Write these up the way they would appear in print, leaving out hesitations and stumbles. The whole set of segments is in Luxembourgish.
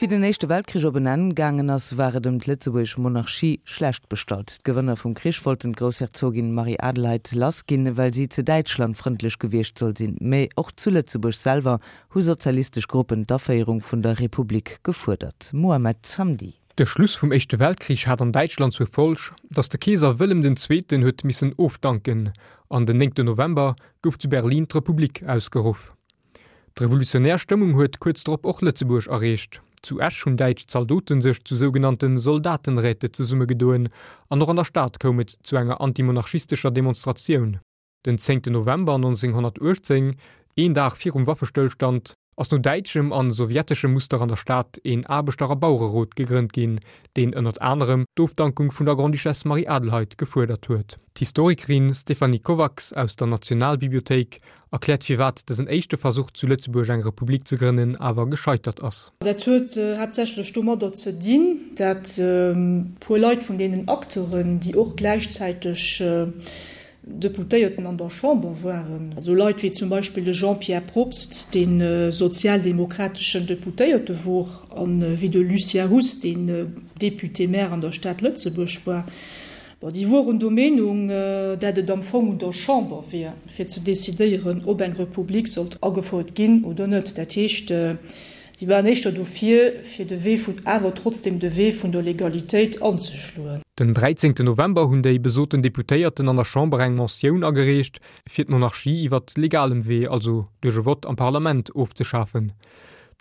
Wéi den Éischte Weltkrich op en Enn gaangen ass, war et ëm d'lëtzebuergesch Monarchie schlecht bestallt. D'Gewënner vum Krich wollten d'Groussherzogin Marie-Adelheid lassginn, well si ze däitschlandfrëndlech gewiescht soll sinn. Mä och zu Lëtzebuerg selwer hu sozialistesch Gruppen d'Aféierung vun der Republik gefuerdert. Mohamed Zamdi. De Schluss vum Éischte Weltkrich hat an Däitschland zur Folg, datt de Keeser Wëllem den Zweeten huet missen ofdanken an den 9 November gouf zu Berlin d'Republik ausgeruff. D'revolutionär Stëmmung huet kuerz drop och Lëtzebuerg erreecht. Zu Esch hunn däitsch Zaldote sech zu sougenannte Soldatenräte zesummegedoen an och an der Stad koum et zu enger antimonarchistescher Demonstratioun. Den 10 November 1918, een Dag virum Waffestëllstand, ass no däitschem an sowjeteschem Muster an der Stad een Aarbechter a Bauererot gegrënnt ginn, deen ënnert anerem d'Ofdankung vun der Grande-Duchesse Marie-Adelheid gefuerdert huet. D'Historikerin Stéphanie Kovacs aus der Nationalbibliothéik erkläert firwat dësen éischte Versuch zu Lëtzebuerg eng Republik ze grënnen awer gescheitert ass. Dat huet haaptsächlech domadder ze dinn, dat puer Leit vun deenen Acteuren, déi och gläichzäiteg Deputéierten an der Chamber waren, esou Leit wéi zum Beispill de Jean-Pierre Probst, dee sozialdemokrateschen Deputéierte wor, a wéi de Lucien Huss, deen Député-maire an der Stad Lëtzebuerg war, Bon, déi woren der Meenung, dat et am Fong un der Chamber wier, fir ze decidéieren, ob eng Republik sollt agefouert ginn oder net. Dat heescht, déi waren éischter dofir, fir de Wee vun, awer trotzdem de Wee vun der Legalitéit anzeschloen. Den 13 November hunn déi besoten Deputéierten an der Chamber eng Motioun agereecht, fir d'Monarchie iwwert legalem Wee, also duerch e Vott am Parlament, ofzeschafen.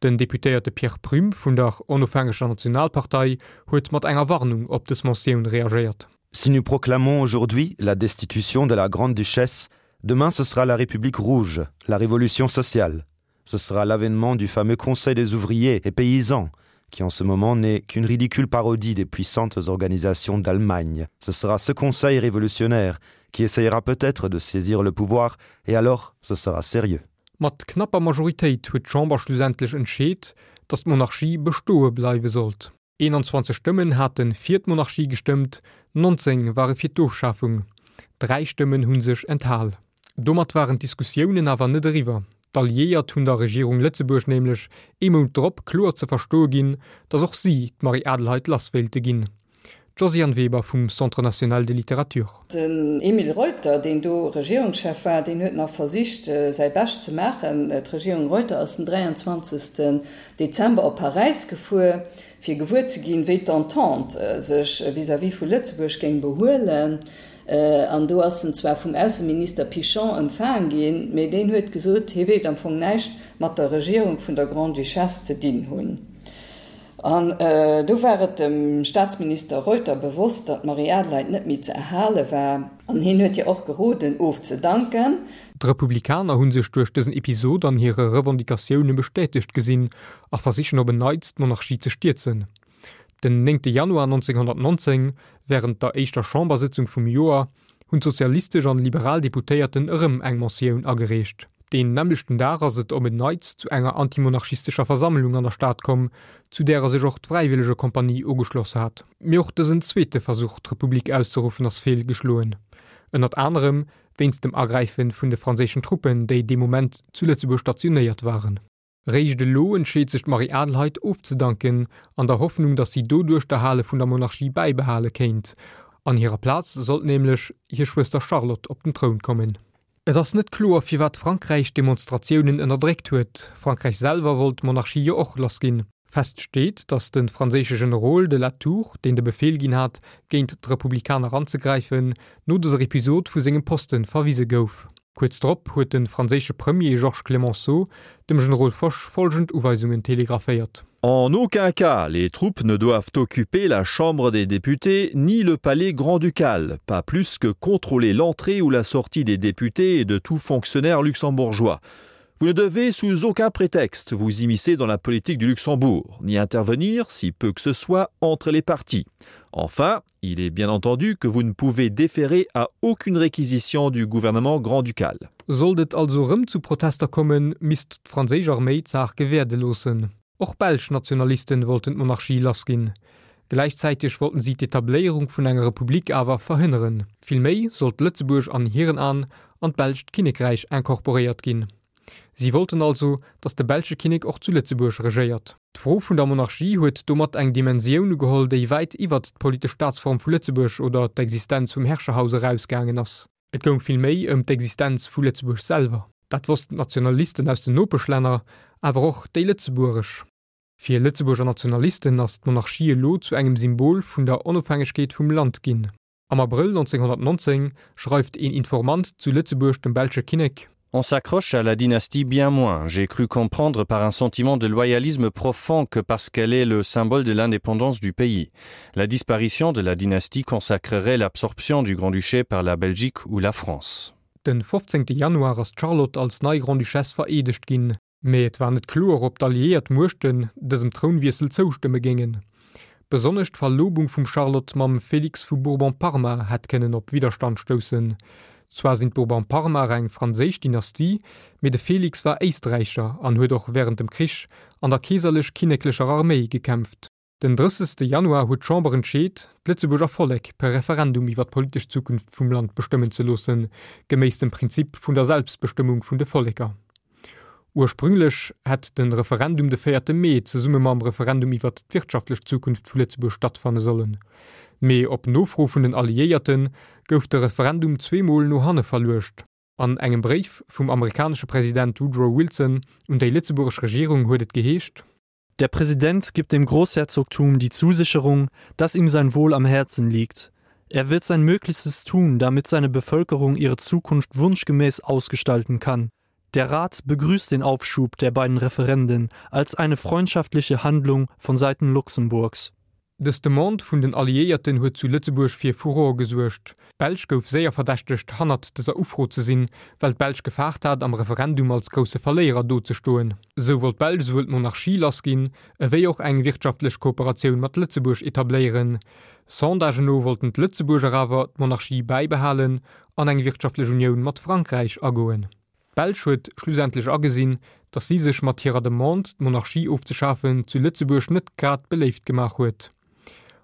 Den Deputéierte Pierre Prüm vun der Onofhängeger Nationalpartei huet mat enger Warnung op dës Motioun réagéiert. Si nous proclamons aujourd'hui la destitution de la grande-duchesse, demain ce sera la République rouge, la révolution sociale. Ce sera l'avènement du fameux Conseil des ouvriers et paysans, qui en ce moment n'est qu'une ridicule parodie des puissantes organisations d'Allemagne. Ce sera ce conseil révolutionnaire qui essayera peut-être de saisir le pouvoir et alors ce sera sérieux. Mat knapper Majoritéit huet d'Chamber schlussendlech entscheet, datt d'Monarchie bestoe bleiwe sollt. 21 Stëmmen hate fir d'Monarchie gestëmmt, 19 ware fir d'Ofschafung, 3 Stëmmen hu sech enthal. Domat waren d'Diskussiounen awer net eriwwer. D'Alliéiert hunn der Regierung Lëtzebuerg nämlech ee Mount drop kloer ze verstoe ginn, datt och si d'Marie-Adelheid lass wéilte ginn. D'Josiane Weber vum Centre national de littérature. Den Emile Reuter, deen do Regierungschef war, deen huet nach versicht, säi Bescht ze maachen. D'Regierung Reuter ass den 23. Dezember op Paräis gefuer, fir gewuer ze ginn, wéi d'Entente sech vis-à-vis vu Lëtzebuerg géing behuelen. An do ass en zwar vum Ausseminister Pichon empfaang ginn, mee deen huet gesot, hie wéilt am Fong näischt mat der Regierung vun der Grande-Duchesse ze dinn hunn. An do war et dem Staatsminister Reuter bewosst, datt d'Marie-Adelheid net méi ze erhale war. An hien huet hir och geroden, ofzedanken. D'Republikaner hu sech duerch dësen Episod an hire Revendicatioune bestätegt gesinn a versichen op en Neits d'Monarchie ze stierzen. Den 9 Januar 1919, wärend der éischter Chambersëtzung vum Joer, hunn d'sozialistesch an liberal Deputéierten erëm eng Motioun agereecht. Deen nämmlechten Dag ass et op en Neits zu enger antimonarchistescher Versammlung an der Stad komm, zu därer sech och d'Fräiwëllegekompanie ugeschloss hat. Mee och dësen zweete Versuch d'Republik auszeruffen ass feelgeschloen, ënnert anerem wéinst dem Agräife vun de franséischen Truppen, déi dee Moment zu Lëtzebuerg stationéiert waren. Réischt elo entscheet sech d'Marie-Adelheid ofzedanken, an der Hoffnung, datt si doduerch d'Erhale vun der Monarchie bäibehale kéint. An hirer Plaz sollt nämlech hir Schwëster Charlotte op den Troun kommen. Et ass net kloer, firwat Frankräich d'Demonstratiounen ënnerdréckt huet. Frankräich selwer wollt d'Monarchie jo och lassginn. Fest steet, datt de franséische Generol de Latour, deen de Befeel ginn hat, géint d'Republikaner anzegräifen, no dëser Episod vu sengem Poste verwise gouf. Kuerz drop huet de franséische Premier Georges Clemenceau dem Generol Foch folgend Uweisungen telegraphéiert. En aucun cas les troupes ne doivent occuper la chambre des députés ni le palais grand-ducal, pas plus que contrôler l'entrée ou la sortie des députés et de tout fonctionnaire luxembourgeois. Vous ne devez sous aucun prétexte vous immiscer dans la politique du Luxembourg, ni intervenir, si peu que ce soit, entre les partis. Enfin, il est bien entendu que vous ne pouvez déférer à aucune réquisition du gouvernement grand-ducal. Sollt et also erëm zu Protester kommen, misst d'franséisch Arméi d'Saach gewäerde loossen. Och belsch Nationalisten wollten d'Monarchie lassginn. Gläichzäiteg wollten si d'Etabléierung vun enger Republik awer verhënneren. Villméi sollt Lëtzebuerg an hiren An an d'belscht Kinnekräich incorporéiert ginn. Si wollten also, datt de belsche Kinnek och zu Lëtzebuerg regéiert. D'Fro vun der Monarchie huet domat eng Dimensioun ugeholl, déi wäit iwwert d'politesch Staatsform vu Lëtzebuerg oder d'Existenz vum Herrscherhaus erausgaangen ass. Et goung vill méi ëm d'Existenz vu Lëtzebuerg selwer. Dat wossten d'Nationalisten aus den Nopeschlänner, awer och déi lëtzebuergesch. Fir Lëtzebuerger Nationalisten ass d'Monarchie elo zu engem Symbol vun der Onofhängegkeet vum Land ginn. Am Abrëll 1919 schreift een Informant zu Lëtzebuerg dem belsche Kinnek. On s'accroche à la dynastie bien moins, j'ai cru comprendre par un sentiment de loyalisme profond que parce qu'elle est le symbole de l'indépendance du pays. La disparition de la dynastie consacrerait l'absorption du Grand-Duché par la Belgique ou la France. Den 15. Januar ass d'Charlotte als nei Grande-Duchesse vereedegt ginn. Mee et war net kloer, ob d'alliéiert Muechten dësem Trounwiessel zoustëmme géingen. Besonnesch d'Verlobung vum Charlotte mam Félix vu Bourbon-Parma hätt kënnen op Widderstand stoussen. Zwar sinn d'Bourbon-Parmaer eng franséisch Dynastie, mee de Félix war Éisträicher an huet och wärend dem Krich an der keeserlech-kinneklecher Arméi gekämpft. Den 30. Januar huet d'Chamber entscheet, d'Lëtzebuerger Vollek per Referendum iwwer d'politesch Zukunft vum Land bestëmmen ze loossen, geméiss dem Prinzip vun der Selbstbestëmmung vun de Volleker. Ursprünglech hätt de Referendum de véierte Mee zesumme mam Referendum iwwer d'wirtschaftlech Zukunft vu Lëtzebuerg stattfanne sollen. Mee op Nofro vun den Alliéierte gouf de Referendum zweemol no hanne verluecht. An engem Bréif vum amerikanesche President Woodrow Wilson un déi lëtzebuergesch Regierung huet et geheescht. Der Präsident gibt dem Großherzogtum die Zusicherung, dass ihm sein Wohl am Herzen liegt. Er wird sein Möglichstes tun, damit seine Bevölkerung ihre Zukunft wunschgemäß ausgestalten kann. Der Rat begrüßt den Aufschub der beiden Referenden als eine freundschaftliche Handlung von Seiten Luxemburgs. Dës Demande vun den Alliéierten huet zu Lëtzebuerg fir Furore gesuergt. D'Belsch gouf séier verdächtegt, hannert dëser Ufro ze sinn, well d'Belsch gefaart hat, am Referendum als grousse Verléierer dozestoen. Sou wollt d'Belsch souwuel d'Monarchie lassginn, ewéi och eng wirtschaftlech Kooperatioun mat Lëtzebuerg etabléieren. Sondagen no wollten d'Lëtzebuerger awer d'Monarchie bäibehalen an eng wirtschaftlech Unioun mat Frankräich agoen. D'Belsch huet schlussendlech agesinn, datt si sech mat hirer Demande, d'Monarchie ofzeschafen, zu Lëtzebuerg net grad beléift gemaach huet.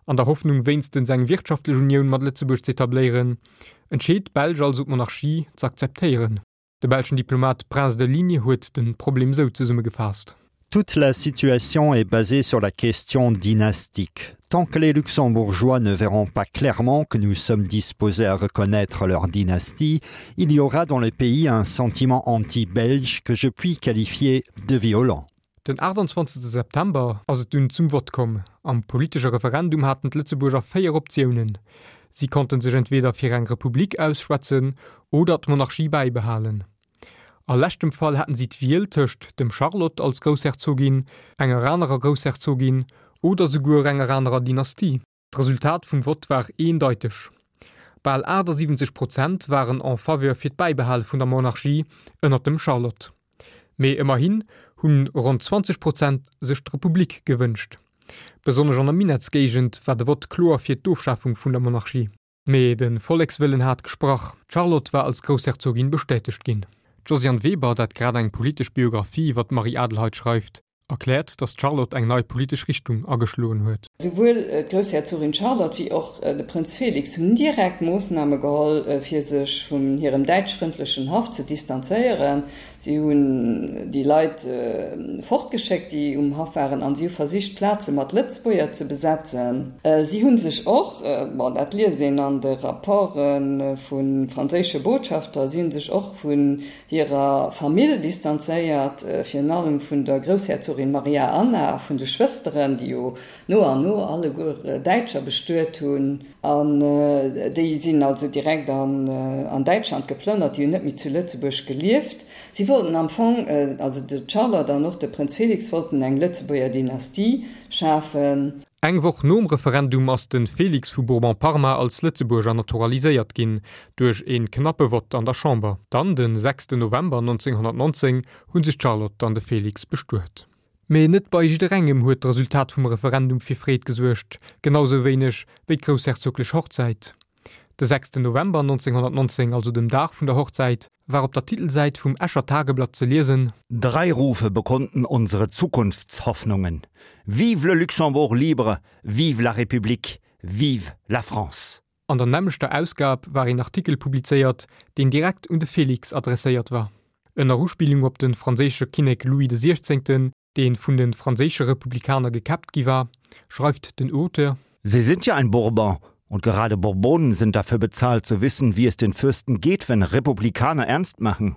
An der Hoffnung wéinstens eng wirtschaftlech Unioun mat Lëtzebuerg z'etabléieren, entscheet d'Belsch also d'Monarchie z'akzeptéieren. De belschen Diplomat Prince de Ligne huet de Problem sou zesummegefaasst. Toute la situation est basée sur la question dynastique. Tant que les luxembourgeois ne verront pas clairement que nous sommes disposés à reconnaître leur dynastie, il y aura dans le pays un sentiment anti-belge que je puis qualifier de violent. Den 28 September ass et dunn zum Vott komm. Am politesche Referendum haten d'Lëtzebuerger 4 Optiounen. Si konnten sech entweder fir eng Republik ausschwätzen oder d'Monarchie bäibehalen. A leschtem Fall haten si d'Wiel tëscht dem Charlotte als Groussherzogin, enger anerer Groussherzogin oder souguer enger anerer Dynastie. D'Resultat vum Vott war eendeiteg, Bal 78 Prozent waren en faveur fir d'Bäibehale vun der Monarchie ënnert dem Charlotte. Mee ëmmerhin hunn ronn 20 Prozent sech d'Republik gewënscht. Besonnesch an der Minettsgéigend war de Vott kloer fir d'Ofschafung vun der Monarchie. Mee de Vollekswëllen hat gesprach, d'Charlotte war als Groussherzogin bestätegt ginn. D'Josiane Weber, dat grad eng politesch Biographie iwwer d'Marie-Adelheid schreift, erkläert, datt d'Charlotte eng nei politesch Richtung ageschloen huet. Souwuel d'Groussherzogin Charlotte wéi och de Prënz Félix hunn direkt Moossname geholl, fir sech vun hirem däitschfrëndlechen Haff ze distanzéieren. Si hunn déi Leit fortgeschéckt, déi um Haff waren, an si hu versicht, d'Plaze mat Lëtzebuerger ze besetzen. Si hu sech och, bon, dat liest een an de Rapporte vu franséische Botschafter, si hu sech och vun hirer Famill distanzéiert, virun allem vun der Groussherzogin Maria Anna a vun de Schwësteren, déi jo no an no alleguer Däitscher bestuet hunn. An déi sinn also direkt an Däitschland geplënnert, déi hunn net méi zu Lëtzebuerg gelieft. Si wollten am Fong, also de Charlotte an och de Prënz Félix wollten eng Lëtzebuerger Dynastie schafen. Eng Woch nom Referendum ass de Félix vu Bourbon-Parma als Lëtzebuerger naturaliséiert ginn, duerch ee knappe Vott an der Chamber. Dann, de 6 November 1919, hu sech d'Charlotte an de Félix bestuet. Mee net bei jidderengem huet d'Resultat vum Referendum fir Freed gesuergt, genau sou wéineg wéi d'groussherzoglech Hochzäit. De 6 November 1919, also dem Dag vun der Hochzäit, war op der Titelsäit vum Escher Tageblatt ze liesen. Drei Rufe bekunden unsere Zukunftshoffnungen, Vive le Luxembourg libre, vive la République, vive la France! An der nämmlechter Ausgab war een Artikel publizéiert, deen direkt un de Félix adresséiert war. Ënner Uspillung op de franséische Kinnek Louis de Siechzéngten, dee vun de franséische Republikaner gekäppt gi war, schreift den Auteur. Sie sind ja ein Bourbon und gerade Bourbonen sind dafür bezahlt zu wissen, wie es den Fürsten geht, wenn Republikaner ernst machen.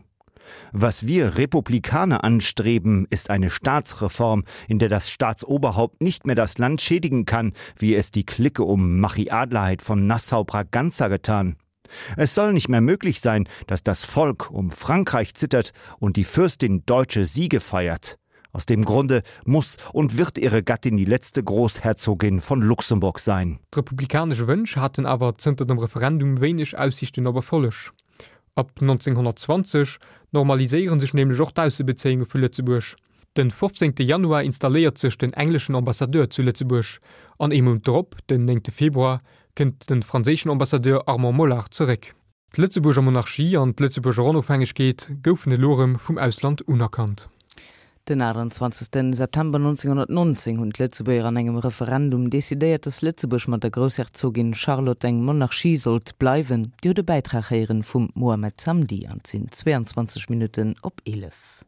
Was wir Republikaner anstreben, ist eine Staatsreform, in der das Staatsoberhaupt nicht mehr das Land schädigen kann, wie es die Clique um Machi Adlerheit von Nassau-Braganza getan. Es soll nicht mehr möglich sein, dass das Volk um Frankreich zittert und die Fürstin deutsche Siege feiert. Aus dem Grunde muss und wird ihre Gattin die letzte Großherzogin von Luxemburg sein. D'republikanesch Wënsch haten awer zënter dem Referendum wéineg Aussiichten op Erfolleg. Ab 1920 normaliséiere sech nämlech och d'Aussebezéiunge vu Lëtzebuerg. Den 15. Januar installéiert sech den engleschen Ambassadeur zu Lëtzebuerg an ee Mount drop, den 9. Februar, kënnt de franséischen Ambassadeur Armand Mollard zeréck. D'Lëtzebuerger Monarchie an d'Lëtzebuerger Onofhängegkeet goufen elo erëm vum Ausland unerkannt. Den 28 September 1919 hunn d'Lëtzebuerger an engem Referendum decidéiert, datt Lëtzebuerg mat der Groussherzogin Charlotte eng Monarchie sollt bleiwen. Dir hutt e Bäitrag héieren vum Mohamed Zamdi an et sinn 22 Minutten op 11.